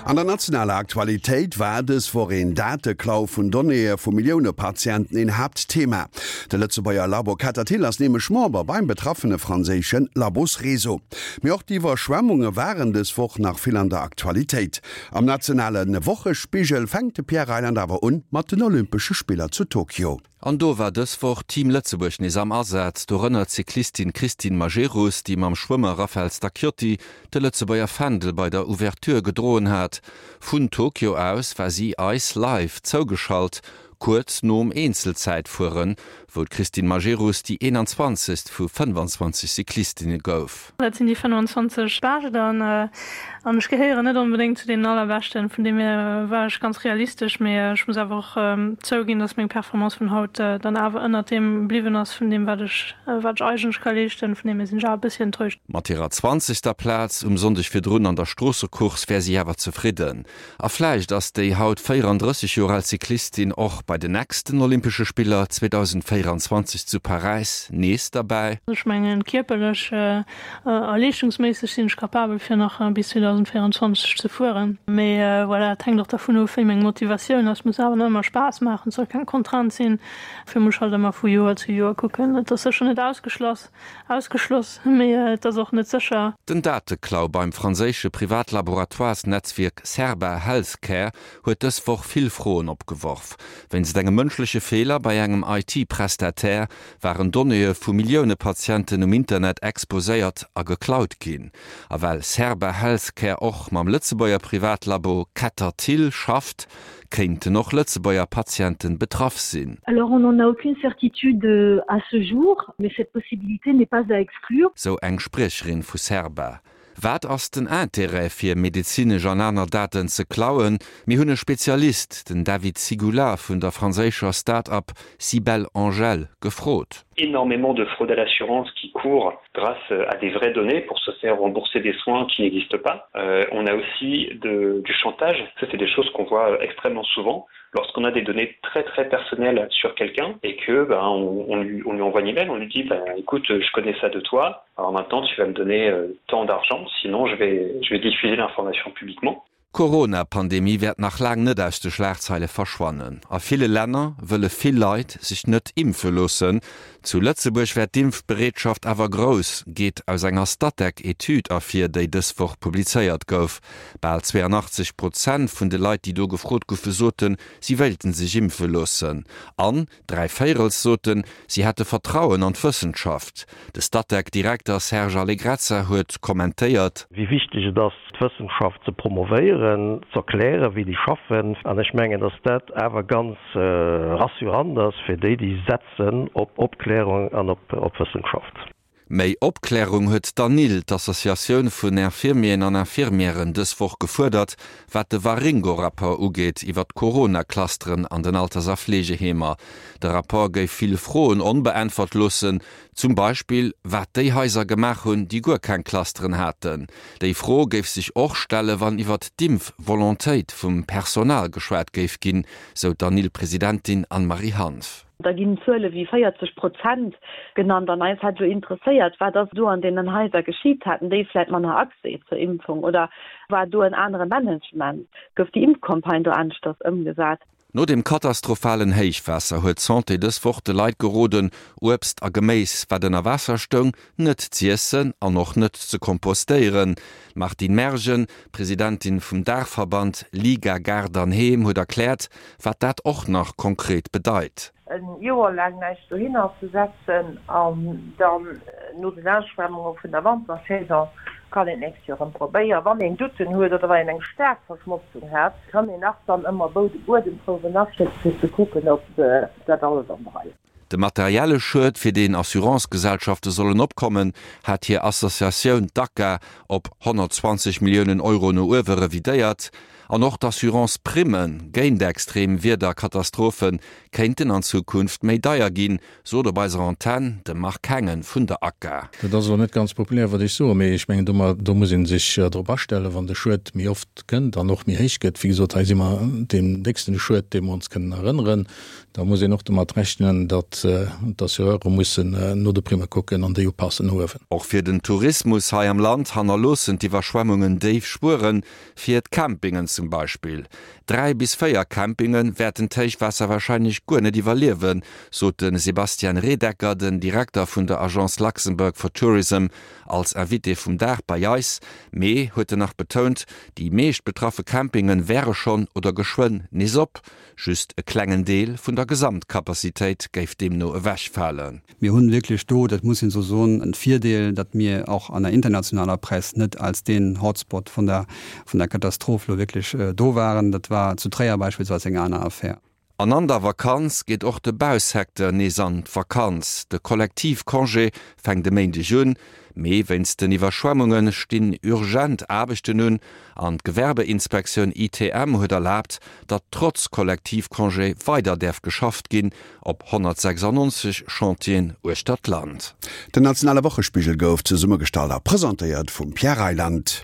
An der nationaler Aktualitéit war dës Woch een Dateklau vun Donnéeë vu Millioune Patienten een Haaptthema. De Lëtzebuerger Labo Ketterthill ass nämlech Member beim betraffene franséische Labosreseau. Mee och d'Iwwerschwemmunge waren dës Woch nach vill an der Aktualitéit. Am nationale Wochespigel fänkt de Pierre Reyland awer un mat den Olympesche Spiller zu Tokio. An do war dës Woch Team Lëtzebuerg nees am Asaz, dorënner d'Cyclistin Christine Majerus, déi mam Schwëmmer Raphaël Stacchiotti de Lëtzebuerger Fändel bei der Ouverture gedroen hat. Vun Tokio aus war si eis live zougeschalt, kuerz nom Eenzelzäitfueren, wou d'Christine Majerus déi 21. Vu 25 Cyclistinne gouf. Dat sinn déi 25 Bescht an an ech gehéieren net onbedéngt zu deenen allerbeschten. Vun deem hier war ech ganz realistesch, mee ech muss awer och zouginn, dass meng Performance vun haut dann awer ënnert deem bliwwen ass vun deem wat ech wat ech eigentlech ka leeschten. Vun deem hier sinn ech awer e bëssi enttäuscht. Mat hirer zwanzegster Plaz um Sonndeg virdrun an der Stroossecourse wär si awer zefridden. A vläicht ass déi haut 34 Joer al Cyclistin och bei den nächsten Olympesche Spiller 2024 zu Paräis nees derbäi. Ech mengen, kierperlech a leeschtungsméisseg sinn ech capabel fir nach bis 2024 ze fueren. Mee voilà, et hänkt och dervun of, wéi meng Motivatioun ass. Et muss awer nach ëmmer Spaass maachen, et soll keng Contrainte sinn. Dofir muss ech halt ëmmer vu Joer zu Joer kucken. Et ass sécher net ausgeschloss. Ausgeschloss, mee et ass och net sécher. Den Dateklau beim franséische Privatlaboratoires-Netzwierk Cerba HealthCare huet dës Woch vill Froen opgeworf. Wéinst engem mënschleche Feeler bei engem IT-Prestataire waren Donnéeë vu Millioune Patienten um Internet exposéiert a geklaut ginn. A well Cerba HealthCare och mam Lëtzebuerger Privatlabo Ketterthill schafft, Kéinten och Lëtzebuerger Patienten betraff sinn? Alors on n'en a aucune certitude à ce jour, mais cette possibilité n'est pas à exclure. Sou eng Spriecherin vu Cerba. Wat ass den Intérêt fir medezinesch an aner Daten ze klauen? Mir hunn e Spezialist, den David Sygula vun der franséischer Start-up CybelAngel, gefrot. Énormément de fraude à l'assurance qui court grâce à des vraies données pour se faire rembourser des soins qui n'existent pas. Euh, on a aussi de, du chantage, ça c'est des choses qu'on voit extrêmement souvent lorsqu'on a des données très très personnelles sur quelqu'un et que ben, on, on, lui, on lui envoie une email, on lui dit ben, écoute je connais ça de toi, alors maintenant tu vas me donner euh, tant d'argent, sinon je vais, je vais diffuser l'information publiquement. D'Corona-Pandemie wäert nach laang net aus de Schlagzeile verschwannen. A ville Länner wëlle vill Leit sech net impfe loossen. Zu Lëtzebuerg wär d'Impfbereetschaft awer grouss, geet aus enger Statec-Etüd ervir, déi dës Woch publizéiert gouf. Bal 82 Prozent vun de Leit, déi do gefrot goufe, soten, si wéilten sech impfe loossen. An Dräivéierels soten, si hätte Vertrauen an d'Wëssenschaft. De Statec-Direkter Serge Allegrezza huet kommentéiert. Wéi wichteg et ass, d'Wëssenschaft ze promovéieren, z'erklären, wéi déi schaffen. An ech mengen, datt dat awer ganz rassurant ass fir déi, déi setzen op Opklärung an op Wëssenschaft. Méi Opklärung huet d'ANIL, d'Associatioun vun Infirmieren an Infirmièren, dës Woch gefuerdert, wat de Waringo-Rapport ugeet iwwer d'Corona-Clusteren an den Alters a Fleegeheemer. De Rapport géif vill Froen onbeäntwert loossen, zum Beispill wat déi Haiser gemaach hunn, déi guer keng Clusteren haten. Déi Fro géif sech och stelle wann iwwer d'Impf-Volontéit vum Personal geschwat géif ginn, sou d'ANIL-Presidentin Anne-Marie Hanff. Da ginn Zuele wéi 40 Prozent genannt an eis hätt elo interesséiert, wat ass do an deenen Haiser geschitt? Haten déi vläit manner Accès zur Impfung oder war do en anere Management? Gouf déi Impfcampagne do aneschters ëmgesat? No dem katastrophalen Héichwaasser huet d'Santé dës Woch de Leit geroden, Uebst a Geméis, wat ënner Waasser stoung, net z'iessen an och net ze kompostéieren. D'Martine Mergen, Presidentin vum Daachverband Liga Gaart an Heem, huet erkläert, wat dat och nach konkret bedeit. E Joer laang näischt dohinner ze setzen an dann no den Ausschwemmunge vun der Wantersaison kann een d'nächst Joer erëm probéieren. Wann een Douten huet oder wann een eng staark Verschmotzung hat, kann een nach dann ëmmer Buedemprouwen aschécken, fir ze kucken, ob dat alles an der Rei ass. De materielle Schued, fir deen Assurancegesellschafte sollen opkommen, hat hir Associatioun, d'ACA, op 120 Milliounen Euro no uewe revidéiert. An och d'Assurance-Primme géint extrem Wiederkatastrophe kéinten an Zukunft méi deier ginn, sot op eiser Antenn de Marc Hengen vun der ACA. Dat ass elo net ganz populär, wat ech soen, mee ech mengen, do muss ee sech drop astellen, wann de Schued méi oft kënnt an och méi héich gëtt. Wéi gesot, hei si mer deem décksten Schued, dee mer ons kënnen erënneren. Da muss een och domat rechnen, datt d'Assureure mussen no de Primme kucken an déi upassen no uewen. Och fir den Tourismus hei am Land hannerloossen d'Iwwerschwemmungen déif Spueren, fir d'Campingen zum Beispill. 3 bis 4 Campinge wäerten d'Héichwaasser warscheinlech guer net iwwerliewen, sot de Sebastian Redecker, den Direkter vun der Agence Luxembourg for Tourism, als Invité vum Dag bei eis. Mee, huet en nach betount, déi meescht betraffe Campinge wäre schonn oder geschwënn nees op. Just e klengen Deel vun der Gesamtcapacitéit géif deemno ewechfalen. Mir hunn wierklech do, dat muss een esou soen, en Virdeel, datt mir och an der internationaler Press net als deen Hotspot vun der vun der Katastroph elo wierklech do waren. Dat war zu Tréier beispillsweis eng aner Affär. An an der Vakanz geet och de Bausecteur nees an d'Vakanz. De Kollektivcongé fänkt e Méindeg un, mee wéinst den Iwwerschwemmunge stinn urgent Aarbechten un an d'Gewerbeinspektioun ITM huet erlaabt, datt trotz Kollektivcongé weider däerf geschafft ginn op 196 Chantieren uechter d'Land. Den nationale Wochespigel gouf zesummegestallt a presentéiert vum Pierre Reyland.